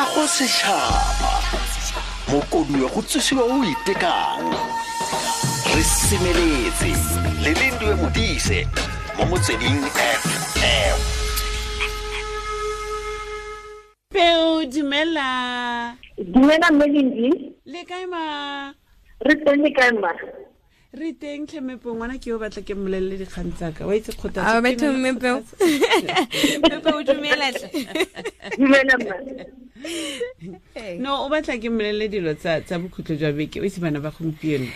Kago setšhaba mokoduwe go tsosiwa o itekang re semeletse le Lindiwe Modise mo Motsweding FM. Peo, dumela. Dumela mme Lindi. Le kae ma? Re teng, le kae ma? Re teng tlhemepo, ngwana ke yo batla ke mmolelele dikgang tsaka wa itse kgothatso. A batho mme Peo. Mme Peo, dumela tle. Dumela mma. No, o batla ke mmolelele dilo tsa bokhutlo jwa beke, o itse bana ba gompieno.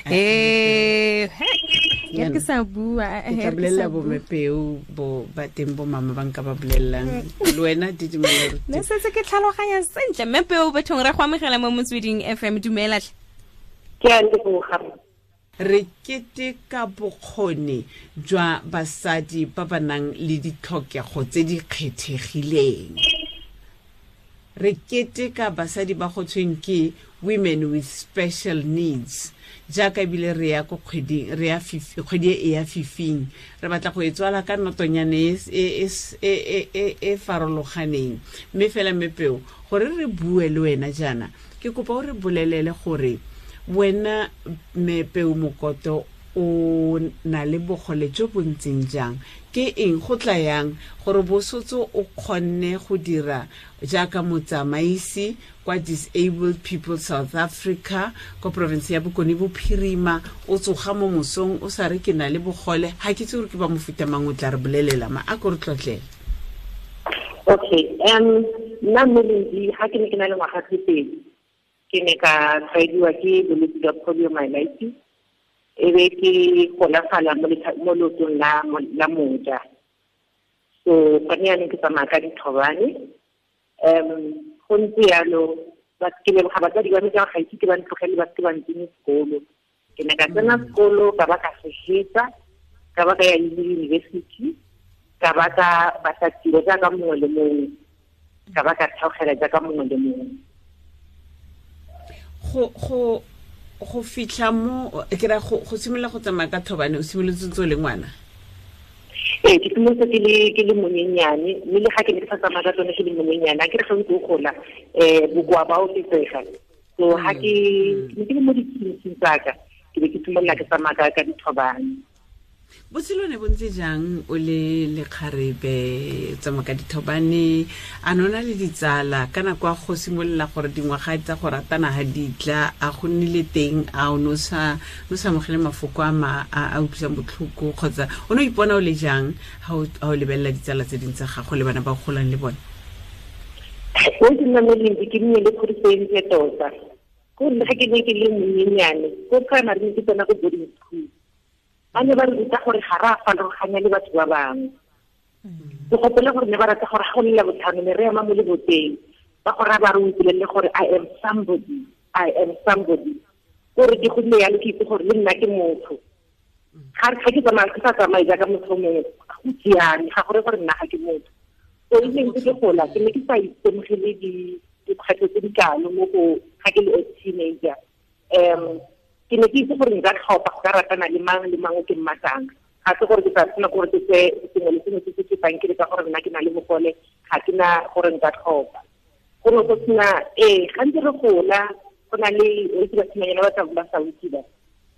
Ya ke sa bua, Ke tla bolelela bo mepeo bo ba teng bo mama ba nka ba bolelelang le wena didimela. Ne setse ke tlhaloganya sentle. Mme Peo, bathong re go amogela mo Motsweding FM, dumela tle. Ke a leboga. Re keteka bokgoni jwa basadi ba ba nang le ditlhokego tse di kgethegileng. Re keteka basadi ba go tshweng ke women with special needs. Jaaka ebile re ya ko kgweding, re ya kgwedi e ya fifing. Re batla go e tswala ka notonyane e farologaneng. Mme fela mme Peo, gore re bue le wena jaana, ke kopa o re bolelele gore wena mme Peo Mokoto o na le bogole jo bo ntseng jang, ke eng go tla yang gore bosotso o kgonne go dira jaaka motsamaisi kwa Disabled People South Africa kwa province ya Bokone Bophirima, o tsoga mo mosong o sa re ke na le bogole, ga ke itse gore ke ba mofuta mang, o tla re bolelela ma a ko re tlotlele. Okay, nna mme Lindi, ga ke ne ke na le ngwaga tse pedi, ke ne ka tshwaediwa ke bolwetse jwa poliomyelitis, e be ke golafala mo leotong la moja. So gone jaanong ke tsamaya ka dithobane. Go ntse yalo, ke leboga batsadi ba me ka ga ise ke ba ntlogele ba seke ba ntsenye sekolo. Ke ne ka tsena sekolo, ka ba ka se hetsa, ka ba ka ya university, ka ba ka batla tiro jaaka mongwe le mongwe, ka ba ka theogela jaaka mongwe le mongwe. Go fitlha mo ke ra go simolola go tsamaya ka thobane, o simolotse ntse o le ngwana? Ee, ke simolotse ke le monyenyane, mme le ga ke ne ke sa tsamaya ka tsone ke le monyenyane, a ke re ga ntse o gola, bokoa ba oketsega. So ga ke ne ke le mo ditleliniking tsaka, ke be ke simolola ke tsamaya ka dithobane. Botshelo ne bo ntse jang o le lekgarebe, tsamaya ka dithobane, a ne o na le ditsala ka nako ya go simolola gore dingwaga tsa go ratana ga di tla, a go nnile teng, a o ne o sa amogele mafoko a ma a utlwisang botlhoko, kgotsa o ne o ipona o le jang ha o lebelela ditsala tse dingwe tsa gago le bana ba o golang le bone? O ke nna mo Lindi, ke nnile le kgodiso e ntle tota. Ko nna ga ke ne ke le monyenyane, ko primary ne ke tsena ko boarding school. Ba ne ba re ruta gore ga re a farologanya le batho ba bangwe. Ke gopola gore ne ba rata gore ga go le Labotlhano ne re ema mo leboteng, ba go raya ba re o ipolelele gore I am somebody, I am somebody. Kore ke godile yalo ke itse gore le nna ke motho. Ga ke tsamaya, ke sa tsamaye jaaka motho mongwe, go siame, ga gore gore nna ga ke motho. So e ne ntse ke gola, ke ne ke sa itemogele dikgwetlho tse di kalo mo go ga ke le a teenager. Ke ne ke itse gore nka tlhopha go ka ratana le mang le mang o ke mmatlang. Ga se gore ke tla tshwanela gore ke tseye sengwe le sengwe se se fetang ke le ka gore nna ke na le bogole, ga ke na gore nka tlhopha. Go ne go sena, ee, gantsi re gola, go na le o itse basimanyana ba tla ba sa itse ba.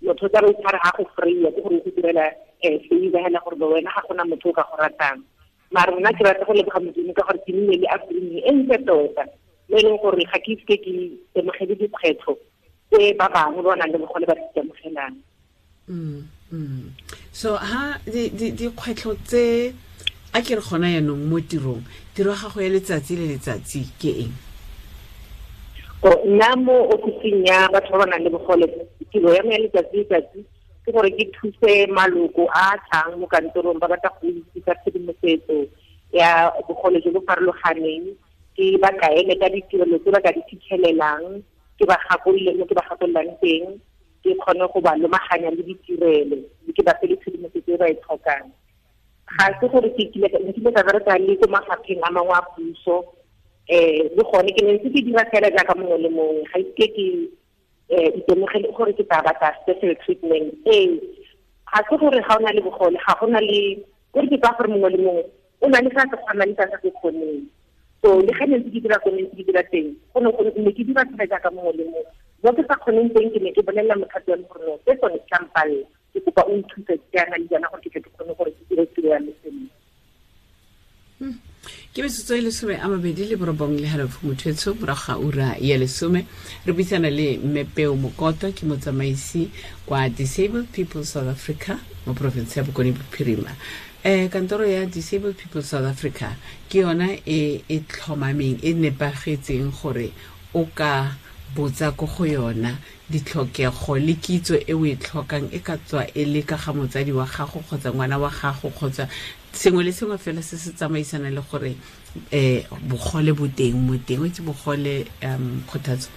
Motho o tla be o tshware ga go free-a, ke gore o go direla, favor hela gore wena ga gona motho o ka go ratang. Mara nna ke rata go leboga Modimo ka gore ke nnile le upbringing e ntle tota, mo e leng gore ga ke ise ke itemogele dikgwetlho tse ba bangwe ba nang le bogole ba di itemogelang. So ha dikgwetlho tse a ke re gona jaanong mo tirong, tiro ya gago ya letsatsi le letsatsi ke eng? Nna mo ofising ya batho ba ba nang le bogole, tiro ya me ya letsatsi le letsatsi ke gore ke thuse maloko a a tlang mo kantorong ba batla go itse ka tshedimosetso ya bogole jo bo farologaneng, ke ba kaele ka ditirelo tse ba ka di fitlhelelang, ke ba gakolole mo ke ba gakololang teng, ke kgone go ba lomaganya le ditirelo, mme ke ba fe le tshedimosetso e ba e tlhokang. Ga se gore ke kile ka, nkile ka bereka le ko mafapheng a mangwe a puso, le gone ke ne ntse ke dira fela jaaka mongwe le mongwe, ga ise ke itemogele gore ke tla batla special treatment. Ee, ga se gore ga o na le bogole, ga go na le, gore ke tsaya gore mongwe le mongwe o na le se a se kgonang le se a sa se kgoneng. So le ga ne ke dira ko ne ke dira teng, go ne go ne ke dira fela jaaka mongwe le mongwe. Mo ke sa kgoneng teng ke ne ke bolelela mothapi wa me gore no, se sone se mpalela, ke kopa o nthuse jaana le jaana gore ke tle ke kgone gore ke dire tiro ya me sentle. Ke metsotso e 29.5 motho morago ga ura ya 10. Re buisana le Mme Peo Mokoto, ke motsamaisi kwa Disabled People South Africa mo porofense ya Bokone Bophirima. Kantoro ya Disabled People South Africa ke yona e e tlhomameng, e nepagetseng gore o ka botsa ko go yona ditlhokego le kitso e o e tlhokang, e ka tswa e le ka ga motsadi wa gago kgotsa ngwana wa gago kgotsa sengwe le sengwe fela se se tsamaisana le gore bogole bo teng mo teng. O itse bogole, Kgothatso,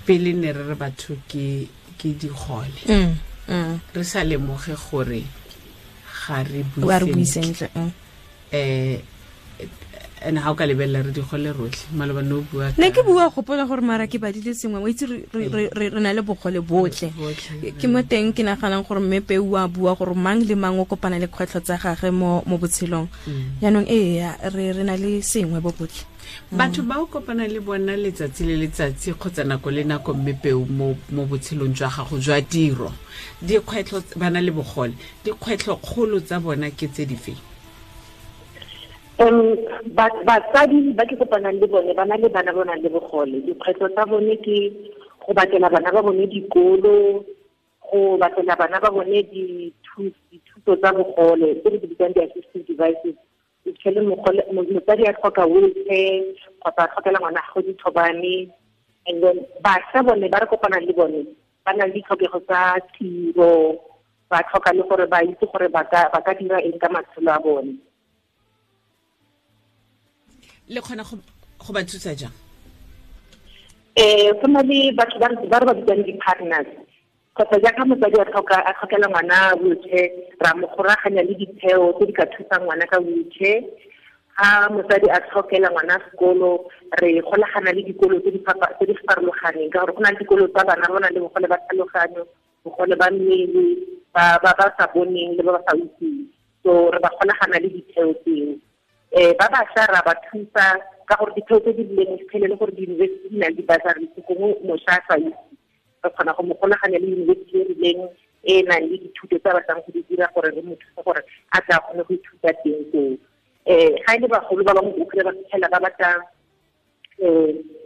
pele ne re re batho ke digole, re sa lemoge gore ga re bue sentle. Ene ga o ka lebelela re digole rotlhe, maloba ne o bua ne ke bua gopola gore mara ke badile sengwe, o itse re na le bogole botlhe. Ke mo teng ke naganang gore mme Peo a bua gore mang le mang o kopana le kgwetlho tsa gagwe mo botshelong. Jaanong ee, re na le sengwe bo botlhe. Batho ba o kopana le bona letsatsi le letsatsi kgotsa nako le nako, mme Peo, mo botshelong jwa gago jwa tiro, dikgwetlho ba na le bogole, dikgwetlho kgolo tsa bona ke tse dife? Batsadi ba ke kopanang le bone ba na le bana ba nang le bogole, dikgwetlho tsa bone ke go batlela bana ba bone dikolo, go batlela bana ba bone dithuso tsa bogole tse re di bitsang di-assistive devices. O fitlhele motsadi a tlhoka wheelchair kgotsa a tlhokela ngwana gagwe dithobane. And then bašwa bone ba re kopanang le bone ba na le ditlhokego tsa tiro, ba tlhoka le gore ba itse gore ba ka dira eng ka matshelo a bone. Le kgona go ba thusa jang? Go na le batho ba re ba bitsang di-partners, kgotsa jaaka motsadi a tlhokela ngwana wheelchair, ra mo goraganya le ditheo tse di ka thusang ngwana ka wheelchair. Ga motsadi a tlhokela ngwana sekolo, re golagana le dikolo tse di farologaneng, ka gore go na le dikolo tsa bana ba nang le bogole ba tlhaloganyo, bogole ba mmele, ba ba sa boneng le ba ba sa utlweng. So re ba golagana le ditheo tseo. Ba bašwa ra ba thusa ka gore ditheo tse di rileng fitlhele le gore di-university di na le di-bursary, gongwe mošwa a sa itse, re kgona go mo golaganya le university e rileng e nang le dithuto tse a batlang go di dira gore re mo thuse gore a tla kgone go ithuta teng koo. Ga e le bagolo ba bangwe o kry-e ba fitlhela ba batla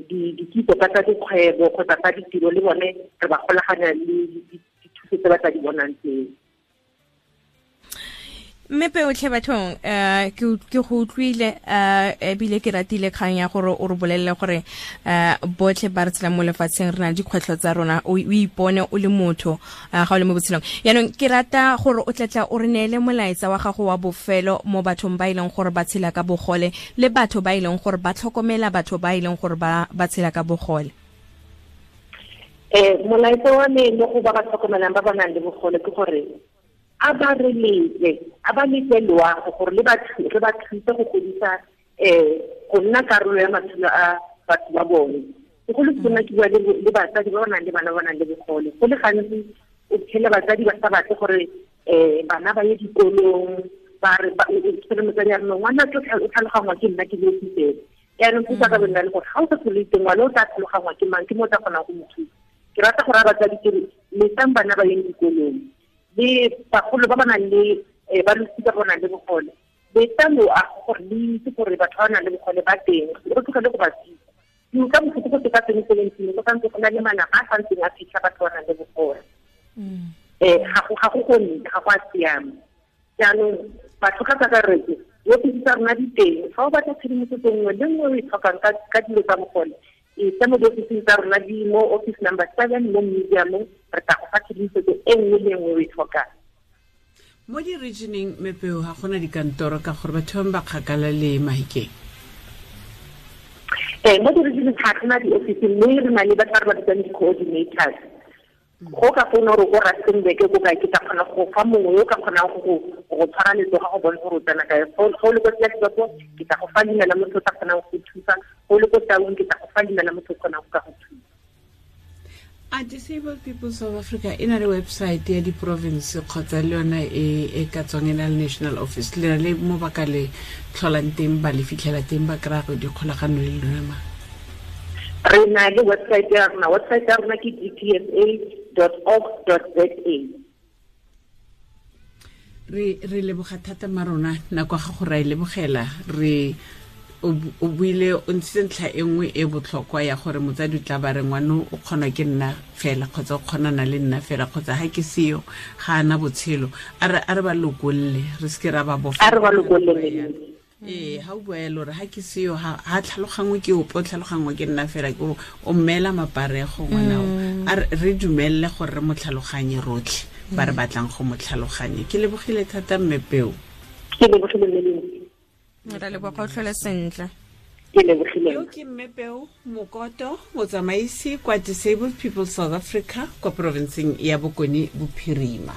dikitso ka tsa dikgwebo kgotsa tsa ditiro, le bone re ba golaganya le dithuso tse ba tla di bonang tseo. Mme Peo tlhe bathong, ke go utlwile, ebile ke ratile kgang ya gore o re bolelele gore botlhe ba re tshelang mo lefatsheng re na le dikgwetlho tsa rona, o ipone o le motho ga o le mo botshelong. Jaanong ke rata gore o tlatla o re neele molaetsa wa gago wa bofelo mo bathong ba e leng gore ba tshela ka bogole le batho ba e leng gore ba tlhokomela batho ba e leng gore ba tshela ka bogole. Molaetsa wa me mo go ba ba tlhokomelang ba ba nang le bogole ke gore a ba re letle, a ba letle loago gore le ba re ba thuse go godisa go nna karolo ya matshelo a batho ba bone. Segolo sena ke bua le batsadi ba ba nang le bana ba nang le bogole. Go le gantsi o fitlhele batsadi ba sa batle gore bana ba ye dikolong, ba re fitlhele motsadi a re no ngwana o tlhalogangwa ke nna ke le ofisere. Jaanong thusa ka bonna le gore ga o sa tlhole teng ngwana o tla tlhalogangwa ke mang, ke mo o tla kgonang go mo thusa. Ke rata gore a batsadi ke re letlang bana ba yeng dikolong, le bagolo ba ba nang le ba losika ba nang le bogole, letla loago gore le itse gore batho ba nang le bogole ba teng, re tlogele go ba thusa. Ke utlwa botlhoko go ka 2017 go santse go na le malapa a santseng a fitlha batho ba nang le bogole. Ga go gonne, ga go a siama. Jaanong batho ka kakaretso, diofisi tsa rona di teng. Fa o batla tshedimosetso nngwe le nngwe o e tlhokang ka dilo tsa bogole, e tsa mo diofising tsa rona di mo office number 7 mo museum-ong, re tla go fa tshedimosetso e nngwe le nngwe o e tlhokang. Mo di-regioneng, Mme Peo, ga gona dikantoro ka gore batho ba kgakala le Mahikeng? Mo di-regioneng ga gona di-office, mme re na le batho ba re ba bitsang di-coordinators. Go ka founa gore ko Rustenburg ko kae, ke tla kgona go fa mongwe yo o ka kgonang go tshwara letsogo go bontsha gore o tsena kae. Go le ko Klerksdorp, ke tla go fa leina la motho o tla kgonang go thusa. Go le ko Taung, ke tla go fa leina la motho o kgonang go ka go thusa. A Disabled People South Africa e na le website ya di-province kgotsa le yona e e ka tswang e na le national office, le na le mo ba ka le tlholang teng, ba le fitlhela teng, ba kry-a go dikgolagano le lona ma? Re na le website ya rona. Website ya rona ke dpsa.org.za. Re leboga thata ma rona, nako ga go ra e lebogela. Re o buile, o ntshitse ntlha e nngwe e botlhokwa ya gore motsadi o tla ba re ngwano o kgonwa ke nna fela, kgotsa o kgonana le nna fela, kgotsa ga ke seyo ga ana botshelo. A re ba lokolle, re seke ra ba bofa. A re ba lokolle. Ee, ga o bua yalo re ga ke seyo ga tlhalogangwe ke ope, o tlhalogangwe ke nna fela, ke gore o mmeela maparego ngwanao. A re dumelele gore re mo tlhaloganye rotlhe ba re batlang go mo tlhaloganye. Ke lebogile thata mme Peo. Ke lebogile mme. Re leboga, o tlhole sentle. Ke lebogile. Yo ke mme Peo Mokoto, motsamaisi kwa Disabled People South Africa kwa provinceng ya Bokone Bophirima.